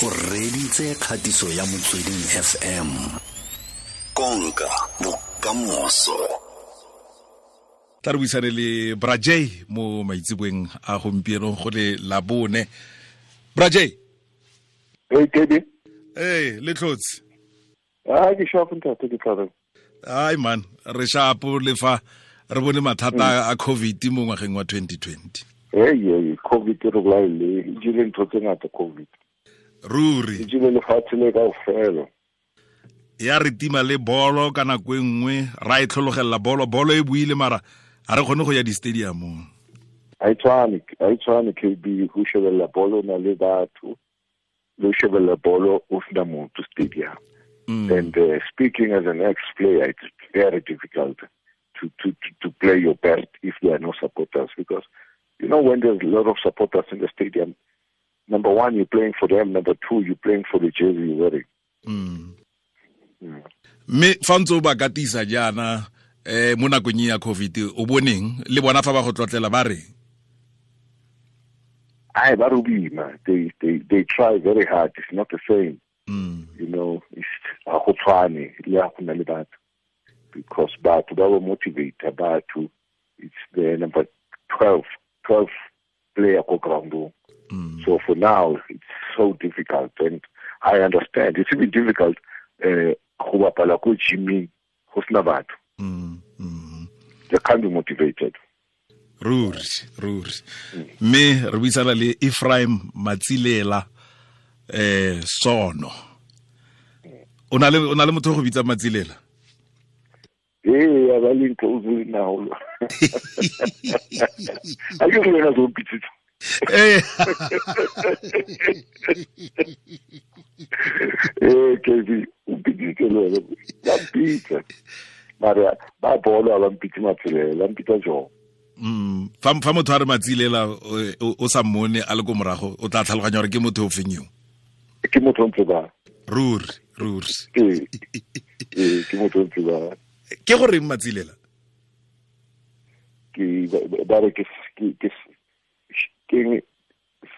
O reditse kgatiso ya Motsweding FM. Konka bokamoso. Tla re buisane le Brajay mo maitseboeng a gompieno go le Labone. Brajay. Hey, Kebi. Hey, le tlhotse. Ah, ke sharp ntate, ke tla reng. Ai man, re sharp le fa re bone mathata a COVID mo ngwageng wa 2020. Hey, hey, COVID re bolaile, e jele ntho tse ngata COVID. Ruri. E jele lefatshe le kaofela. Ya re tima le bolo ka nako e nngwe, ra e tlhologelela bolo, bolo e buile mara ga re kgone go ya di-stadiumong. Ha e tshwane KB, go shebelela bolo na le batho, le shebelela bolo o sena motho stadium. And speaking as an ex-player, it's very difficult to play your best if there are no supporters, because you know when there's a lot of supporters in the stadium, number one, you're playing for them, number two, you're playing for the jersey you're wearing. Mme fa ntse o ba katisa jaana mo nakong ya COVID, o boneng le bona fa ba go tlotlela ba re? Ai, ba rubima. They try very hard. It's not the same. You know, it's a go tshwane le a go na le batho, because batho ba ba motivate batho. It's the number 12 player ko ground. So for now it's so difficult, and I understand it's even difficult go bapala ko gyming go sena batho. They can't be motivated. Ruri. Mme re buisana le Ephraim Matsilela Sono. O na le motho go bitsa Matsilela? Ee, a ba le ntlo o na holo. A ke re wena o mpitsitse. Ee. Ee, KB, o mpitsitse le wena. Ba mpitsa. Mara ba bolo ba mpitse Matsilela, ba mpitsa jang? Fa motho a re Matsilela o sa mmone a le ko morago, o tla tlhaloganya gore ke motho o feng yo. Ke motho o ntse ba. Ruri. Ee, ke motho o ntse ba. Ke gore Matsilela? Ke ba re ke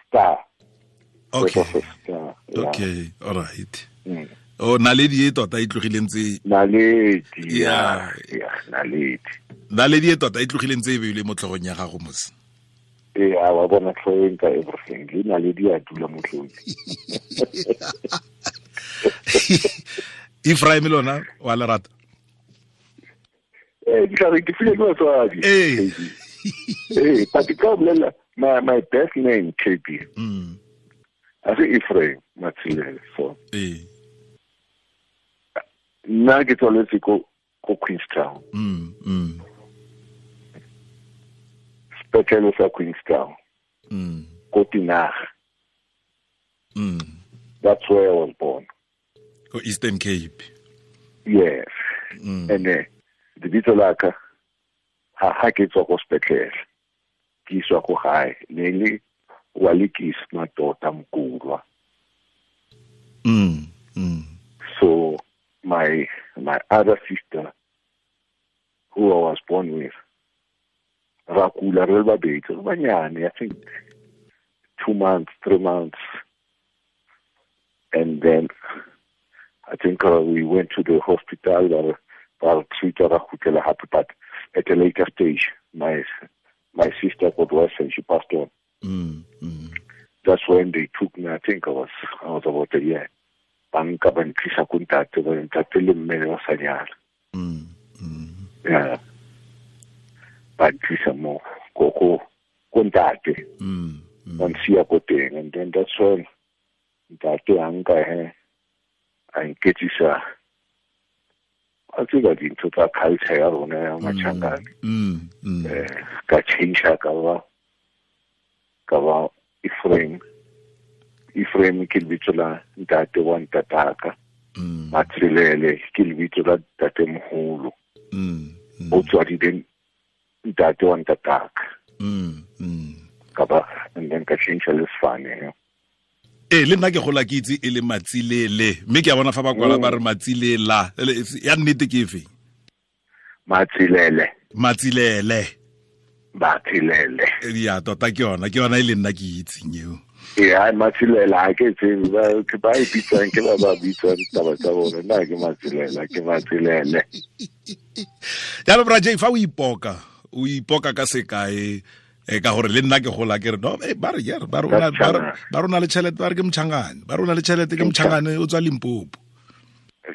star. Okay. Star, yeah. Okay, all right. Oh, naledi e tota e tlogileng tse. Naledi. Yeah, naledi. Naledi e tota e tlogileng tse e beilwe mo tlhogong ya gago mos. Ee, a wa bona tlhogong ka everything. Le naledi a dula mo tlhogong. Ephraim lona wa lerata. Eh, ke tla re ke file ke batswadi. Ee. Ee, but ke tla bolela my best name KB. A se Ephraim Matsilela, so. Ee. Nna ke tswaletse ko Queenstown. Sepetlele sa Queenstown. Ko Tinaga. That's where I was born. Ko Eastern Cape. Yes. And lebitso la ka ha ke tswa ko sepetlele, ke iswa ko gae, ne le wa lekis matota Mkulwa. So my other sister, who I was born with, ra kula re le babedi, re banyane, I think 2 months, 3 months, and then I think we went to the hospital. But at a later stage, my sister got worse and she passed on. That's when they took me. I think I was about a year. Banka ba ntlisa ko ntate, ba ntate le mme ba sa nyala. Yeah. Ba ntlisa mo ko ntate. Ba nsiya ko teng, and then that's when ntate a nka he a nketsisa a tseba dintho tsa culture ya rona ya Machangane. Ka change ka ba Ephraim. Ephraim ke lebitso la ntate wa ntataka. Matsilele ke lebitso la ntate moholo. O tswadile ntate wa ntataka. Ka ba and then ka change le sefane. Ee, le nna ke gola ke itse e le Matsilele, mme ke a bona fa ba kwala ba re Matsilela. Ya nnete ke efe? Matsilele. Matsilele. Matsilele. Ya tota ke yona e le nna ke itseng eo. Ee, ai Matselela ha ke tsebe ba ke ba e bitsang ke ba ba bitsang taba tsa bone. Nna ke Matselela, ke Matselele. Jalo Bra J, fa o ipoka, o ipoka ka sekae ka gore le nna ke gola ke re no ba re ba rona le tšhelete ba re ke Mchangane, ba rona le tšhelete ke Mchangane o tswa Limpopo.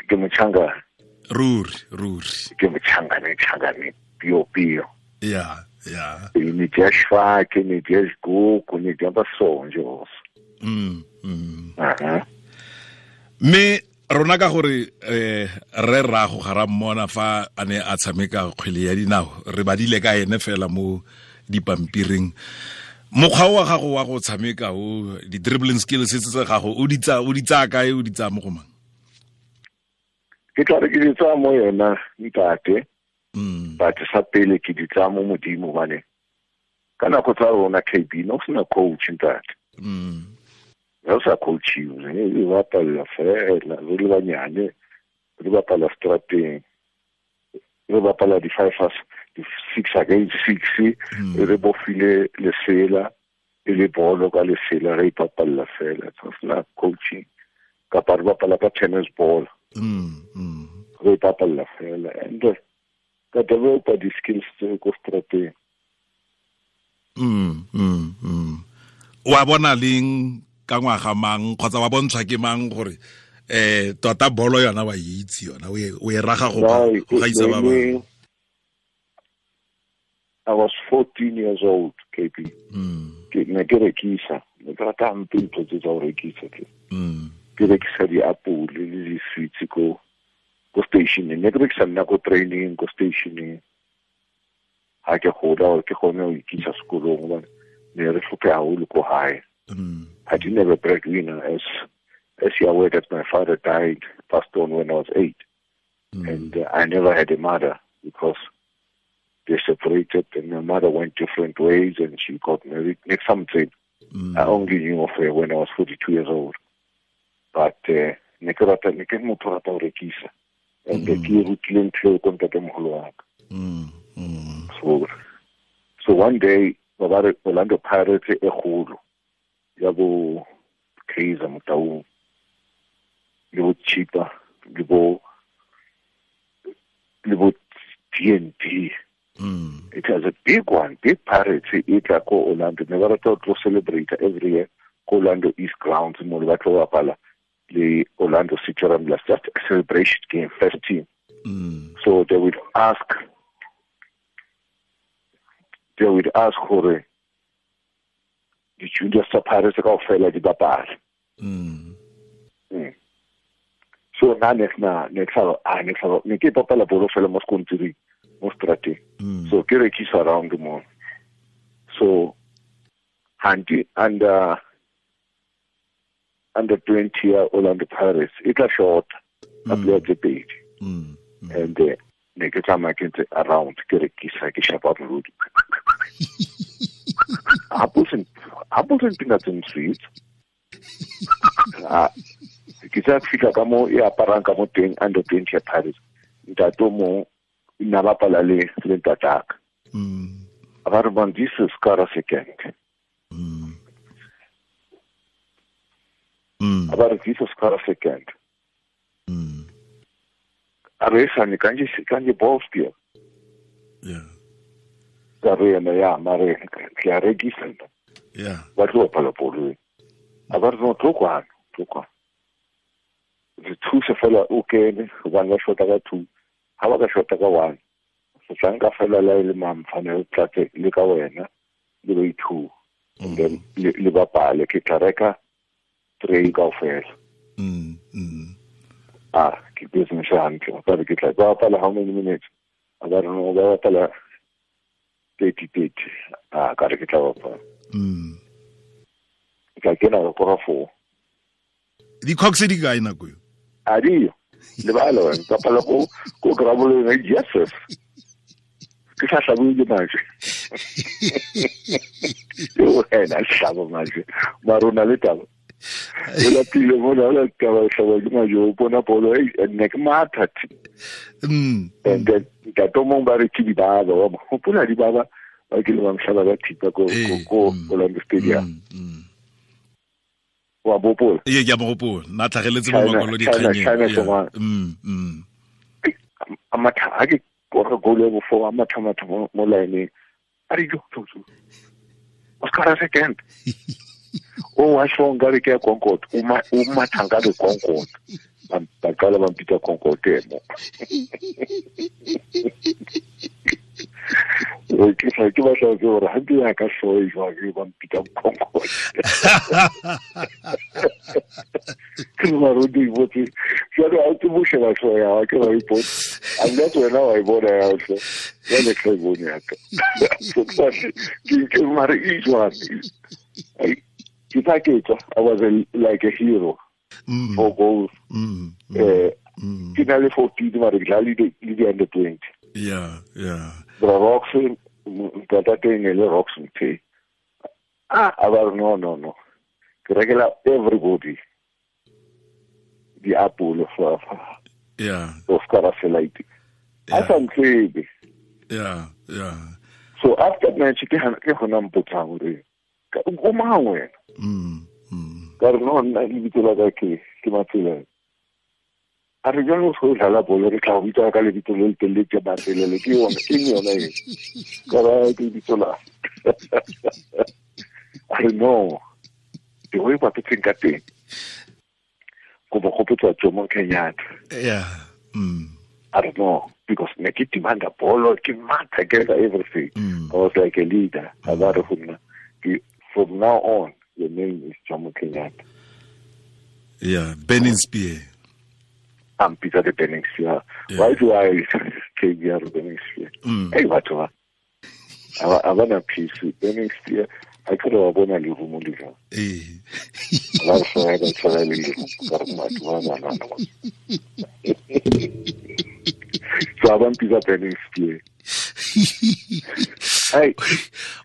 Ke Mchangane. Ruri, ruri. Ke Mchangane, Mchangane pio pio. Yeah, yeah. Ne dia Schwake, ne dia Gogo, ne dia Basonjo. Mme rona ka gore re rago ga ra mmona fa a ne a tshameka kgwele ya dinao, re badile ka ene fela mo dipampiring. Mokgwa wa gago wa go tshameka o di dribbling skills tse gago o di tsaya kae, o di tsaya mo go mang? Ke tla re ke di tsaya mo yena ntate. But sa pele ke di tsaya mo Modimo bane. Ka nako tsa rona KB no sena coach ntate. Re sa coachiwe, re bapala fela re le banyane, re bapala strateng, re bapala di 5 6 against 6, re bofile lesela e le bolo ka lesela re ipapalla fela, so sena coaching kapa re bapala ka tennis ball. Re ipapalla fela and ka developa di-skills tse ko strateng. Wa bona leng ka ngwaga mang kgotsa wa bontshwa ke mang gore tota bolo yona wa itse yona o e raga go gaisa ba bangwe? I was 14 years old, KB. Ke ne ke rekisa, ne ke rata hampe ntho tse tsa go rekisa tse. Ke rekisa diapole le di-sweets ko stationeng. Ne ke rekisa nna ko training, ko stationeng. Ha ke gola ke kgone ho ikisa sekolong hobane ne re hlophe haholo ko hae. I didn't have a breadwinner, as you are aware that my father died, passed on when I was 8. And I never had a mother because they separated and my mother went different ways and she got married. Next something, I only knew of her when I was 42 years old. But ne ke rata, ne ke motho rata ho rekisa. And ke rutile ntho eo ko ntatemoholo wa ka. So one day, Orlando Pirates e kgolo ya bo Kaizer Motaung le bo Chipa le bo TNT. It was a big one, big Pirates e tla ko Orlando. Ne ba rata ho tlo celebrate every year ko Orlando East Grounds mo le ba tlo bapala le Orlando City Ramblers, just a celebration game, first team. So they would ask gore di-juniors tsa Pirates kaofela di bapale. So nna ne ne ke bapala bolo fela mo sekontiring, mo strateng. So ke rekisa around mo. So hanti under 20 ya Orlando Pirates e tla short ka player tse pedi. And ne ke tsamaya ke ntse around ke rekisa ke shapa molodi. Apples and peanuts and sweets. Ke tsa fihla ka mo e aparang ka mo teng under 20 ya Pirates. Ntate o mong nna bapala le ntataka. A ba re man, this is Kara second. A ba re this is Kara second. A re sane kanje ball spear. Yeah. Ka re ena ya mare ke a rekisa nna. Yeah. Ba tlo bapala bolo. A ba re no tlo kwano, tlo kwano. Re thuse fela o kene hobane ba shota ka 2. Ha ba ka shota ka 1. Se tla nka fela la le mamfane o tlatse le ka wena le ba 2. And then le bapale ke tla reka 3 kaofela. Ah, ke business hantle. Ba re ke tla ba bapala how many minutes? A ba re no ba bapala 30. Ah, ka re ke tla bapala. Ka kena ka kora 4. Di-cocks di kae nako eo? A diyo. Lebala wena. Ka pala ko graboleng, yes. Ke sa hlabiwe ke majwe. Yo wena hlaba majwe. Mara o na le taba. O lapile mona, o la taba o hlaba ke majwe, o bona bolo, ne ke matha. And then ntate o mong ba re ke dibaba, wa mo hopola dibaba ba kile ba mhlaba ka thipa ko Orlando Stadium. Wa bopola? Ee, ke a mo gopola. Na tlhageletse mo makwalo dikganyeng. A matha ha ke kora goal ya bofo a matha matha mo line a re jo jo. O skara second. O wa shonga re ke Concord, o matha nga re Concord. Ba qala ba mpitsa Concord mo. Ke sa ke batla ke gore ha ke ya ka hloe jwa ke ba mpitsa Concord. Ke ba re di botse. Jwale a ke boshe ba hloe ya ke ba ipotse. A nna tsena wa e bona ya hlo. Jwale ke e bone ya ka. Ke mare e jwang. Ke tla ke tswa I was like a hero. 4 goals. Ke na le 14 mare ke dlala le di under 20. Yeah, yeah. Bra Roxon, ntate ne le Roxon te. Ah, aba no. Ke rekela everybody di apple fa. Yeah. O skara selaite. A sa ntsebe. Yeah, yeah. So after match ke gona mpotsa gore o mang wena? Ka re no nna lebitso la ka ke Matsela. A re jalo go dlala bolo re tla go bitsa ka lebitso le le telele ke Matselele ke yone ke yone e. Ka ra ke lebitso la. A re no. Ke go ipa teng ka teng. Go bo gopotsa Jomo Kenyatta. Yeah. I don't know, because ne ke demanda bolo ke matha ke everything. I was like a leader. A ba re go nna from now on your name is Jomo Kenyatta. Yeah, Burning Spear. I'm Peter the Burning Spear. Yeah. Why do I take the Burning Spear? Hey, what do I? I want a piece with Burning Spear. I could have won a little more. Eh. So I want Peter Burning Spear. Hey,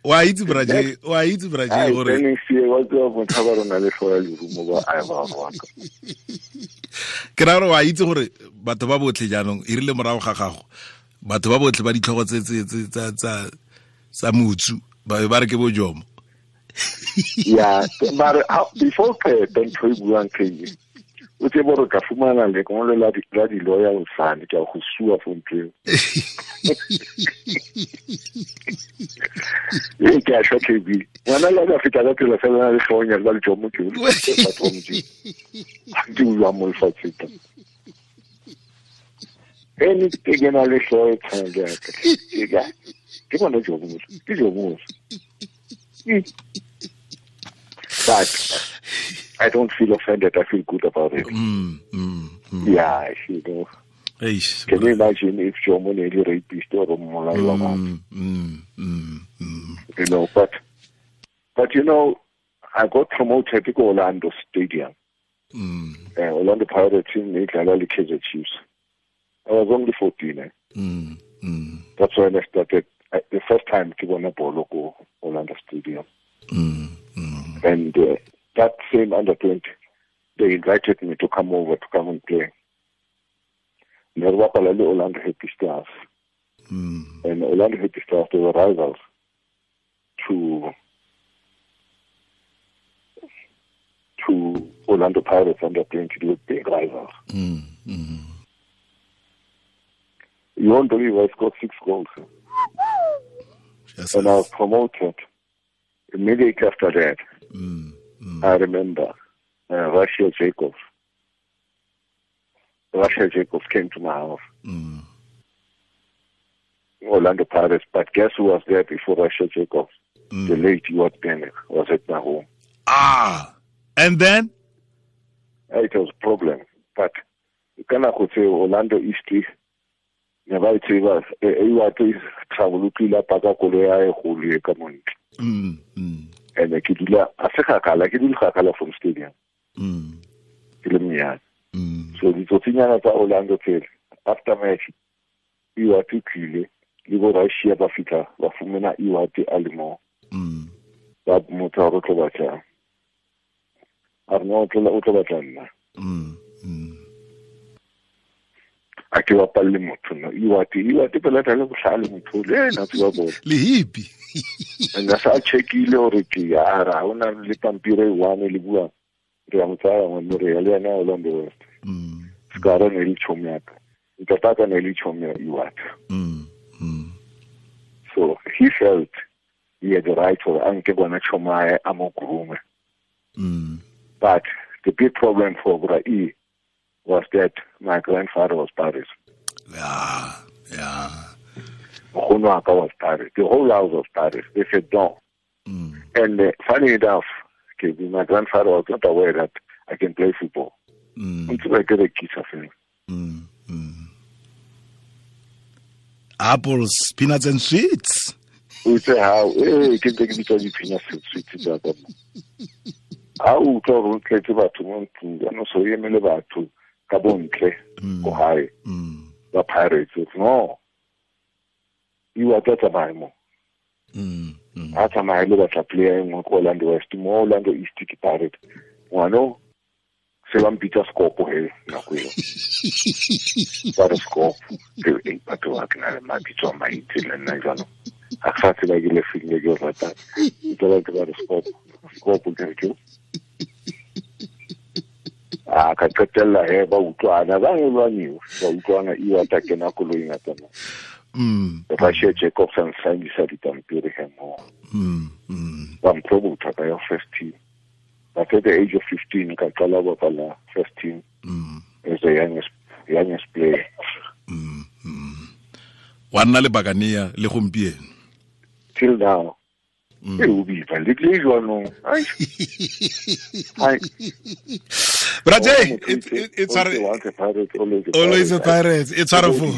wa itse braje, wa itse braje gore Burning Spear wa tswa motho ba rona le hloya lerumo ba a ba wa ka. Ke ra gore wa itse gore batho ba botlhe jaanong e rile morago ga gago batho ba botlhe ba ditlhogo tse tse tsa tsa motsu ba ba re ke bo Jomo. Yeah, but before ke ntho e buang ke o tse bo re ka fumana le kongolo la di lawyer o sane ke go sua for ntho eo. E ke a shwa KB. Ngwana la ka feta ka tsela fela le hlonya le Jomo ke o batho ba Modimo. Ke bua mo lefatsheng. Ene ke ke na le hloyo tshwana ya ka. Ke ka ke bona Jomo. Ke Jomo. But I don't feel offended. I feel good about it. Yeah, you know. Eish, can you imagine if Jomo ne le rapist or mmolai wa batho? You know, but you know, I got promoted to Orlando Stadium. Orlando Pirates team ne dlala le Kaizer Chiefs. I was only 14. Eh? That's when I started. The first time to go bolo ko Orlando Stadium. And that same under 20, they invited me to come over to come and play. Ne re bapala le Orlando Happy Stars. And Orlando Happy Stars, they were rivals to Orlando Pirates under 20. They were big rivals. You won't believe I scored 6 goals. Yes, and I was promoted immediately after that. I remember Russia Jacobs. Russia Jacobs came to my house. Orlando Pirates. But guess who was there before Russia Jacobs? The late Ewart Bennett was at my home. Ah, and then? It was a problem. But you cannot say Orlando East. Ne ba tseba e travel pila paka koloi ya e golo e ka montle. And ke dula a se gakala ke dula gakala from stadium. Ke le monyane. So ditsotsinyana tsa Orlando tsele after match Ewart tlile le bo Russia ba fitla ba fumana Ewart a le mo. Ba motho a re tlo batla. A re no o tlo batla nna. A ke bapalle motho no Ewart pela tla le bohlale motho le ena tseba bolo le hippie and sa checkile hore ke ya ra ona le pampiri e one le bua Re a mo tsaya ngwanno re ya le yena Orlando West. Scara ne le chomi ya ka. Ntataka ne le chomi ya Iwata. So he felt he had the right for anke bona chomae a mo groom. But the big problem for Bra E was that my grandfather was Paris. Yeah, yeah. Nkgono was Paris. The whole house was Paris. They said no. And funny enough, okay, my grandfather was not aware that I can play football. Until I get a kiss of him. Apples, peanuts and sweets. We say how ke ntse ke bitsa di-peanuts and sweets tsa ka. Ha o utlwa gore o tletse batho mo ntlong, jaanong so o emele batho ka bontle ko gae ba Pirates. No, Iwata tsamaye mo. A tsamaye le batla player e nngwe ko Orlando West, mo Orlando East ke Pirate. Ngwano se ba mpitsa Scopo he nako eo. Ba re Scopo, ke batho ba ke na le mabitso a mantsi le nna jaanong. A sa tseba ke le feng le ke o ratang. Ke ba ke ba re Scopo, Scopo ke re ke. A ka qetella he ba utlwana, ba lwaniwa, ba utlwana Iwata kena koloing a tsamaya. Russia Jacobs and signisa dipampiri he mo. Ba mpromota ka ya first team. But at the age of 15 ka qala ho bapala first team as the youngest player. Wa nna le Bakania le gompieno. Till now. E o bipa le tle jwanong. Ai. Ai. Braje, it's always a pirate. It's wonderful.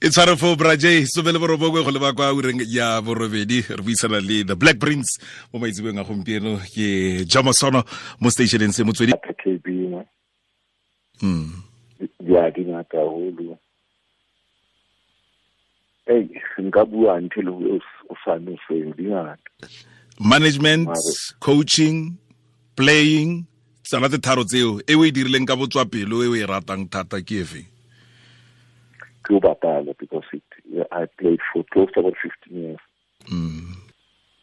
It's wonderful, Braje. So bele borobongwe go leba kwa ureng ya borobedi re buisana le the Black Prince mo maitsebeng a gompieno ke Jomo Sono mo stationeng se motswedi. KB mo. Ya di ngata haholo. Hey, nka bua until o sa no se di ngata. Management, coaching, playing, tsala tse tharo tseo e o e dirileng ka botswa pelo e o e ratang thata ke efe? Ke o bapala because I played for close to about 15 years.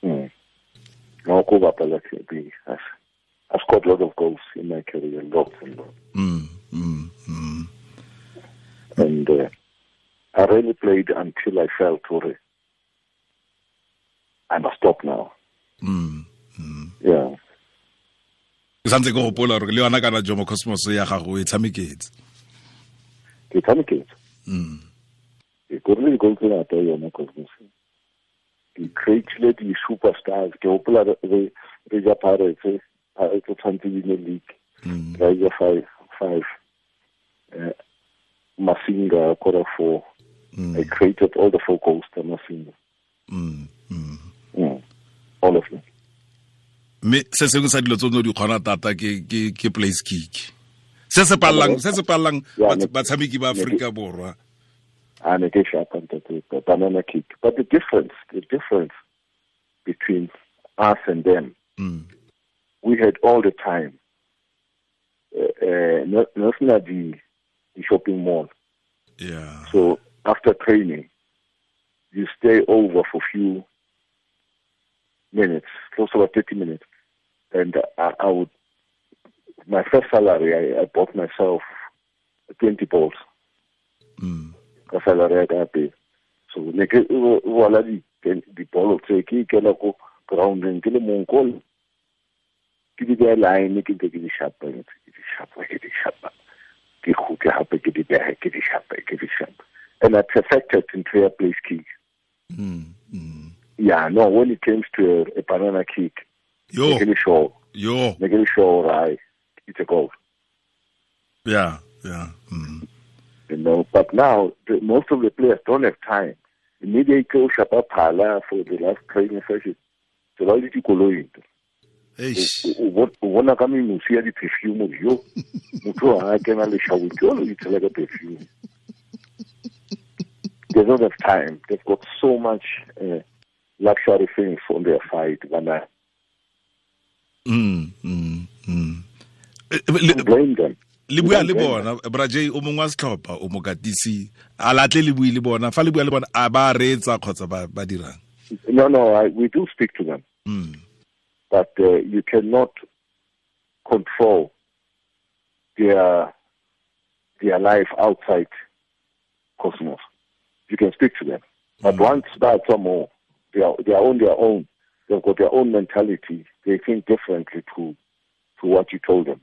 No, ko bapala ke I scored a lot of goals in my career, lots and lots. And I really played until I felt I must stop now. Yeah. Ke santse ke gopola gore le yona kana Jomo Cosmos ya gago e tshameketse. Ke tshameketse. Ke korile di-goal tse ngata yona Cosmos. Ke creatile di-superstars. Ke gopola re ja Pirates, Pirates tshwanetse di ne league. Ra ja 5. Masinga kora 4. I created all the 4 goals to Masinga. All of them. Me se sengwe sa dilo tse o di kgona thata ke place kick. Se se pallang batshameki ba Afrika Borwa. A ne ke sharp ntate, banana kick. But the difference between us and them, we had all the time. No the shopping mall. Yeah. So after training, you stay over for few minutes, close to about 30 minutes. And I would, my first salary, I bought myself 20 balls. Ka salary ya ka pele. So ne ke wala di ball tse ke ikela ko groundeng ke le mong ko ke di beha line ke ntse ke di shapa ke di shapa ke kgutle hape ke di beha ke di shapa ke di shapa. And I perfected into a place kick. Yeah, no, when it comes to a banana kick, yo, sure, yo, sure, right, it's a goal. Yeah, yeah. You know, but now most of the players don't have time. Immediately go shapa phala for the last training session. So why did you go into? O bona ka memusi ya di-perfume yo motho ha kena le shower ke o itshela ka perfume. They don't have time. They've got so much luxury things on their side. Blame them. Le bua le bona Braje o mongwe wa setlhopha o mokatisi a latle le bue le bona fa le bua le bona a ba reetsa kgotsa ba dirang. No, we do speak to them. But you cannot control their life outside Cosmos. You can speak to them. But once that's more, they are on their own. They've got their own mentality. They think differently to what you told them.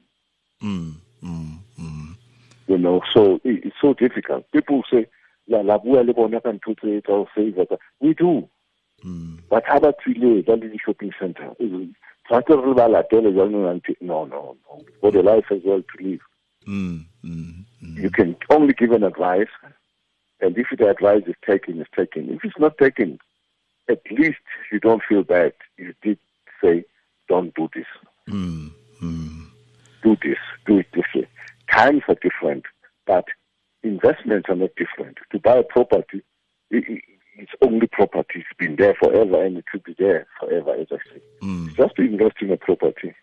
You know, so it's so difficult. People say, la bua le bona ka ntho tse tsa ho save. We do. But how about we live at the shopping center? No. We've got a life as well to live. You can only give an advice, and if the advice is taken, it's taken. If it's not taken, at least you don't feel bad. You did say, don't do this. Do this. Do it this way. Times are different, but investments are not different. To buy a property, it's only property. It's been there forever, and it should be there forever, as I say. It's just to invest in a property.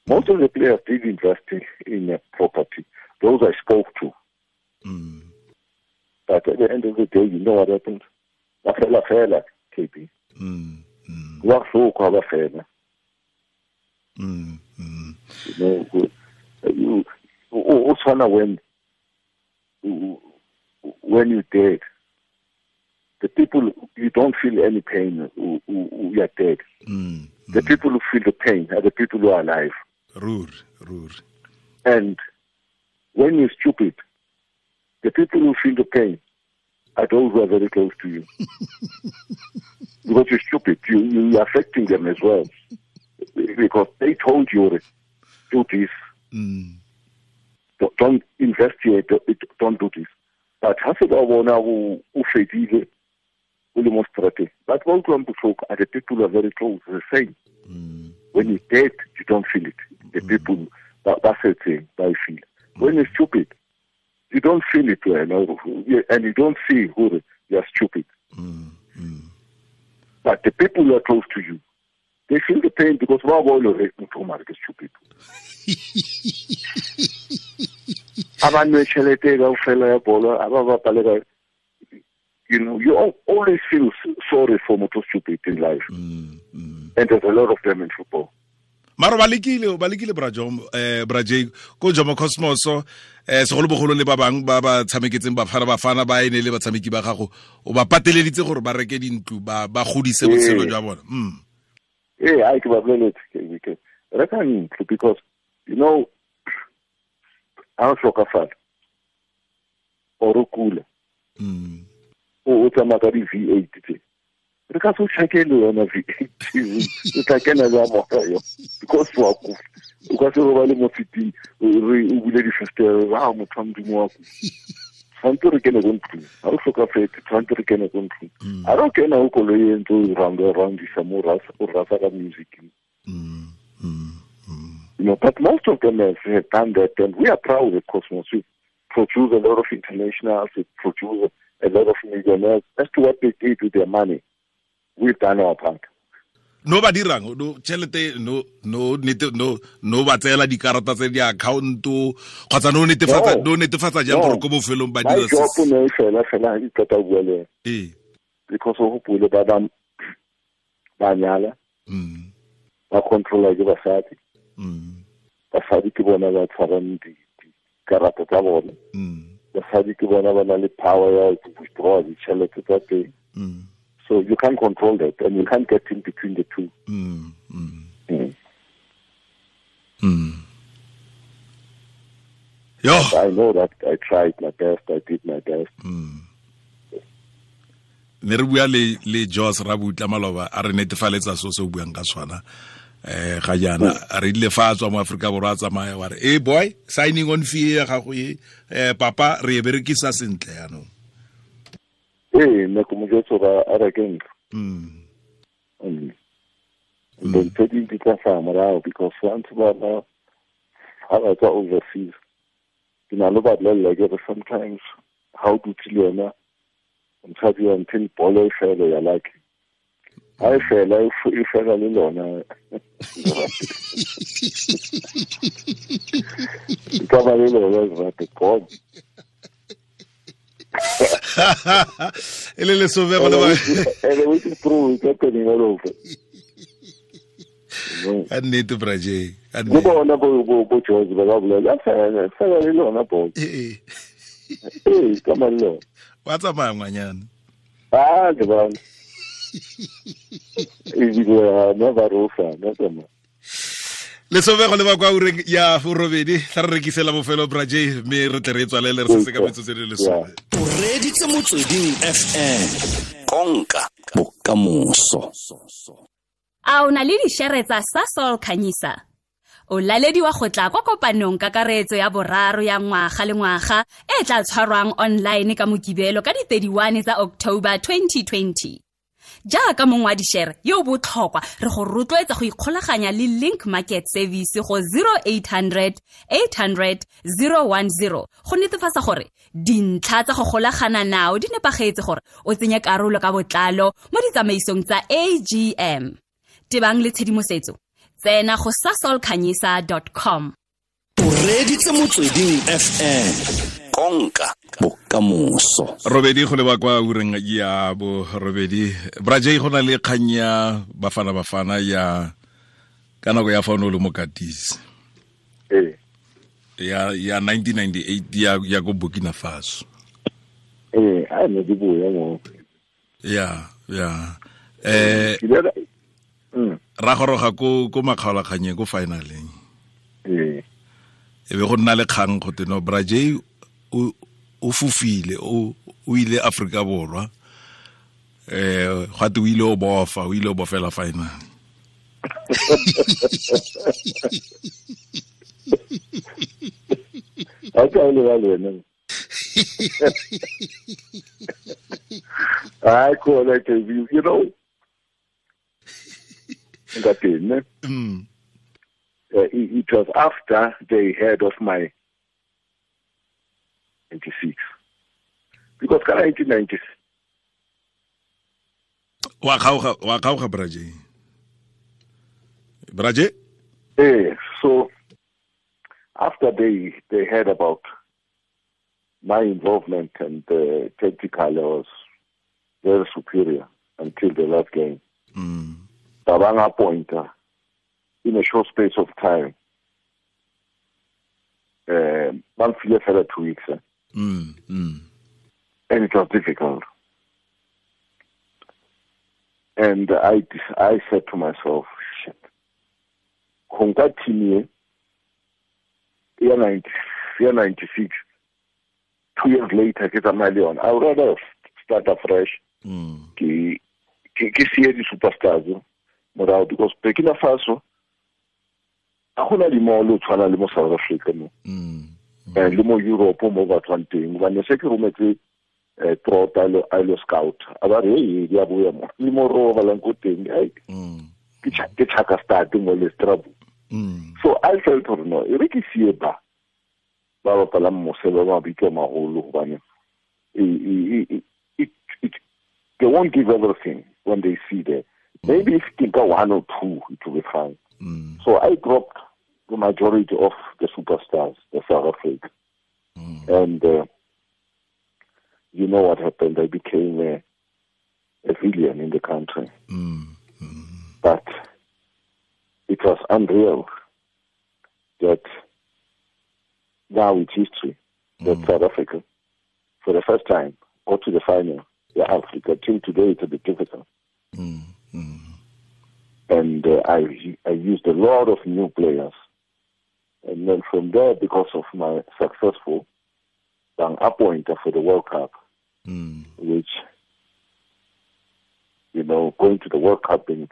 Most of the players did invest in a property. Those I spoke to. But at the end of the day, you know what happens? Ba fela, KB. Ba fela. You know, you when you're dead, the people, you don't feel any pain who are dead. The people who feel the pain are the people who are alive. Rur. And when you're stupid, the people who feel the pain are those who are very close to you. Because you're stupid, you're affecting them as well. Because they told you, do this. Don't invest here, don't do this. But but are the people who are very close, the same. When you're dead, you don't feel it. The people, that's the thing, they feel. When you're stupid, you don't feel it, and you don't see who you are stupid. But the people who are close to you, they feel the pain because stupid. You know, you always feel sorry for motho stupid in life. And there's a lot of them in football. Maro ba lekile bra Jay ko Jomo Cosmos segolobogolo le ba bang ba ba tshameketseng bafana ba ene le batshameki ba gago o ba pateleditse gore ba reke dintlo ba godise botshelo jwa bona. I ke ba boleletse reka ntlo because you know ha o hlokafala or o kula o tsamaya ka di V8 tse re ka se tshakele yona V8 o tla kena jwa moya yo because wa ku o ka se robale mo fitting re o bule di-fenster wa motho wa modimo wa ku tshwanetse re kene ko ntlong ha o hlokafetse tshwanetse re kene ko ntlong a re o kena o koloi e ntse o roundisa mo o rasa ka music. You know, but most of them have done that, and we are proud at Cosmos. We produce a lot of internationals, we produce a lot of millionaires. As to what they did with their money, we've done our part. No ba dirang no chelete no no no no ba tsela dikarata tse di account kgotsa no netefatsa jang gore ko bofelong ba dira se. My job ne fela di tota bua le. Because o hopole ba ba nyala. Ba controla ke basadi. Basadi ke bona ba tshwarang dikarata tsa bona. Basadi ke bona ba na le power ya to withdraw ditšhelete tsa teng. So you can't control that, and you can't get in between the two. Yo. I know that I tried my best. I did my best. Ne re bua le Jos Rabutla maloba a re netefaletsa so se o buang ka swana. Ga jaana a re ile fa tswa mo Afrika Borwa a tsamaya wa re eh boy signing on fee ya gago e papa re e berekisa sentle yaanong. Nna ke mo jwetsa gore a reke ntlo. Then tse ding di tla hlaha morao because once ba ha ba tswa overseas ke na le ba bolella ke re sometimes ha o dutse le yona mosadi wa until bolo e fele ya lucky. Ha e fela e fela le lona. E ka ba le lona rate God. E le lesome go le ba and which is true, it's happening all over. Ka nnete Braje, ka Le nnete. Bona bo George ba ba bolela fela le lona bolo. Ee. Ee, ka mallo. Wa tsamaya ngwanyana. Ah, ke ba. Ebile na ba rofa, na tsamaya. Lesome go leba kwa ureng ya borobedi, tla re rekisela bofelo Braje, mme re tle re tswalele re setse ka metsotso e le lesome. O reditse Motsweding FM. Konka bokamoso. A o na le dišere tsa Sasol Khanyisa? O lalediwa go tla kwa kopanong kakaretso ya boraro ya ngwaga le ngwaga e tla tshwarwang online ka Mokibelo ka di-31 tsa October 2020. Jaaka mong wa dišere yo o botlhokwa, re go rotloetsa go ikgolaganya le Link Market Service go 0800 800 010 go netefatsa gore dintlha tsa go golagana nao di nepagetse gore o tsenye karolo ka botlalo mo ditsamaisong tsa AGM. Tebang le tshedimosetso, tsena go sasolkhanyisa.com. O reditse Motsweding FM. Konka bokamoso. Robedi go leba kwa ureng ya bo robedi. Braje, go na le kgang ya Bafana Bafana ya ka nako ya fa o ne o le mokatisi. Ee. Ya 1998 ya ko Burkina Faso. Ee, a ne di boya mo. Ya. Ra goroga ko makgaolakganyeng ko finaleng. Ee. E be go nna le kgang go te no Braje o fofile, o ile Afrika Borwa. Gwa te o ile o bofa, o ile o bofela final. A ka le ba le wena. I call it a view, you know. Ngatene. It was after they heard of my 96. Because 1996. Wa kgaoga Braje. Braje? So after they heard about my involvement and tactical, I was very superior until the last game. Babanga pointer in a short space of time. 2 weeks. And it was difficult. And I said to myself, shit. Konka team year 96, 2 years later, ke tsamaya le yona. I would rather start afresh. Ke siye di superstars morao, because Burkina Faso a gona di mall o tshwana le mo South Africa mo. Le mo Europe mo ba tswang teng. Hobane se ke rometse Trota a lo scout. A ba re hey, di a boya mo. Le mo robalang ko teng. Ke chaka start mo le strabo. So I felt gore no, e re ke siye ba bapalang mose ba mabitso a maholo, hobane they won't give everything when they see there. Maybe if you think one or two, it will be fine. So I dropped the majority of the superstars, the South Africa. And you know what happened? I became a villain in the country. But it was unreal that now it's history that South Africa, for the first time, got to the final. Yeah, Africa. Till today, it's a bit difficult. And I used a lot of new players. And then from there, because of my successful appointment for the World Cup, which, you know, going to the World Cup being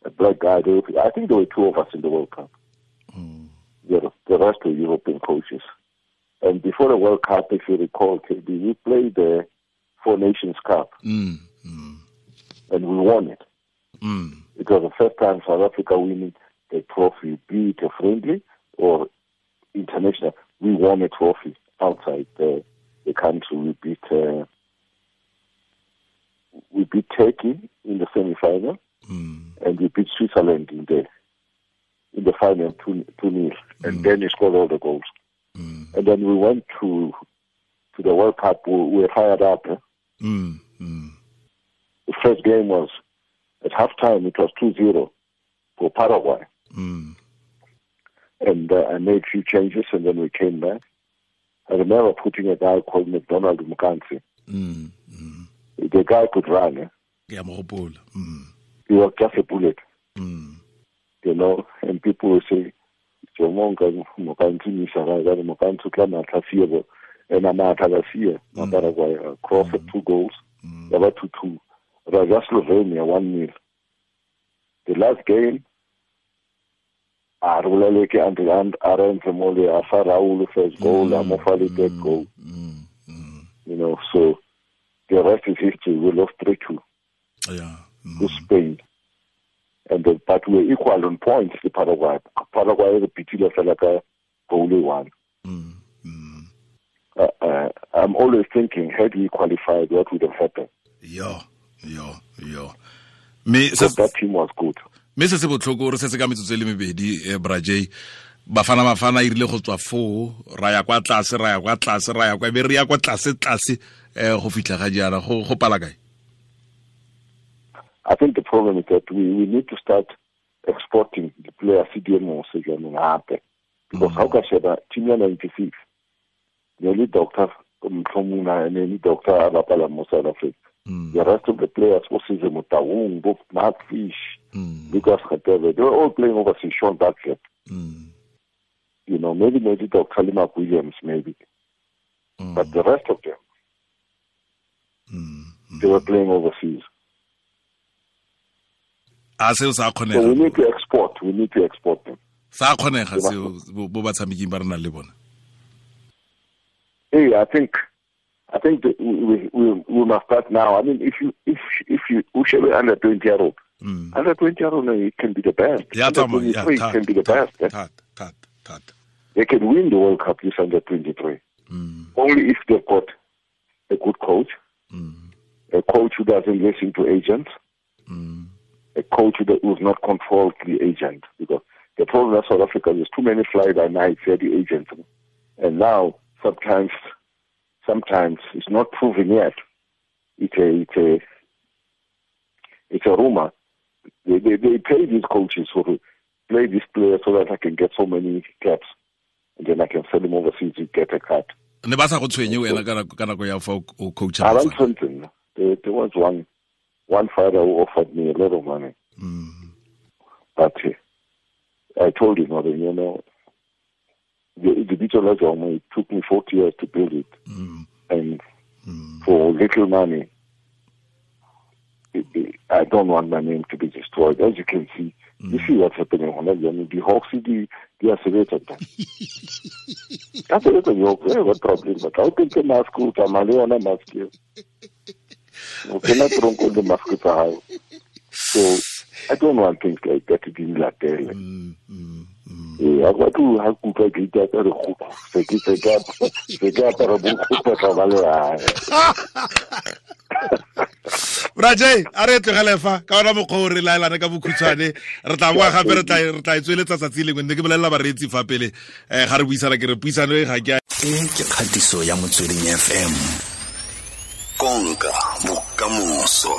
a black guy, I think there were two of us in the World Cup. The rest were European coaches. And before the World Cup, if you recall, KB, we played the Four Nations Cup. And we won it. It was the first time South Africa winning a trophy, be it a friendly or international. We won a trophy outside the country. We beat Turkey in the semi-final, and we beat Switzerland in the final 2-0, and then he scored all the goals. And then we went to the World Cup. We were fired up. The first game was at halftime. It was 2-0 for Paraguay. And I made few changes, and then we came back. I remember putting a guy called McDonald Mukansi. The guy could run. Eh? Yeah, He was just a bullet. You know, and people will say, and cross 2 goals, 2-2. Raja Slovenia 1-0. The last game, first goal, third goal. You know, so the rest is history. We lost 3-2 to Spain. And but we were equal on points to Paraguay. Paraguay repeated goal 1. I'm always thinking, had we qualified, what would have happened? Yo. That team was good. Me se se botlhoko re setse ka metsotso e le mebedi, Bra Jay. Bafana e rile go tswa foo, ra ya kwa tlase, ra ya kwa tlase, ra ya kwa, be re ya kwa tlase tlase go fitlha ga jaana go pala kae? I think the problem is that we need to start exporting the players CDMO because how can I team 96 nearly doctor nearly doctor Abapala mo South Africa. The rest of the players, Osise Motaung, Bob Mark Fish, Lucas Khatebe, they were all playing overseas, Sean Duckett. You know, maybe Dr. Mark Williams, maybe. But the rest of them, they were playing overseas. So we need to export. We need to export them. Hey, I think that we must start now. I mean, if you Ushebe under 20-year-old, under 20-year-old, it can be the best. Yeah, under 23 can be the best. They can win the World Cup this under 23. Only if they've got a good coach, a coach who doesn't listen to agents, a coach who does not control the agent. Because the problem in South Africa is too many fly-by-night the agents, and now sometimes it's not proven yet. It's a rumor. They pay these coaches to play these players so that I can get so many caps, and then I can sell them overseas to get a cut. Ne ba sa go tshwenye wena ka nako ya fa o coach. Around something. There was one father who offered me a lot of money, but I told him, you know, the Bitso, it took me 40 years to build it, and for little money, I don't want my name to be destroyed. As you can see, you see what's happening on that. The Hawks, they are separated. That's a little what problem? But I think the mask, mask. So I don't want things like that to be like that. Bra Jay, a re tlogele fa ka ona mokgwa o re laelana ka bokhutshwane re tla boa gape re tla e tsweletsa tsatsi lengwe ne ke bolelela bareetsi fa pele ga re buisana ke re puisano e ga ke e ke kgatiso ya Motsweding FM konka bokamoso.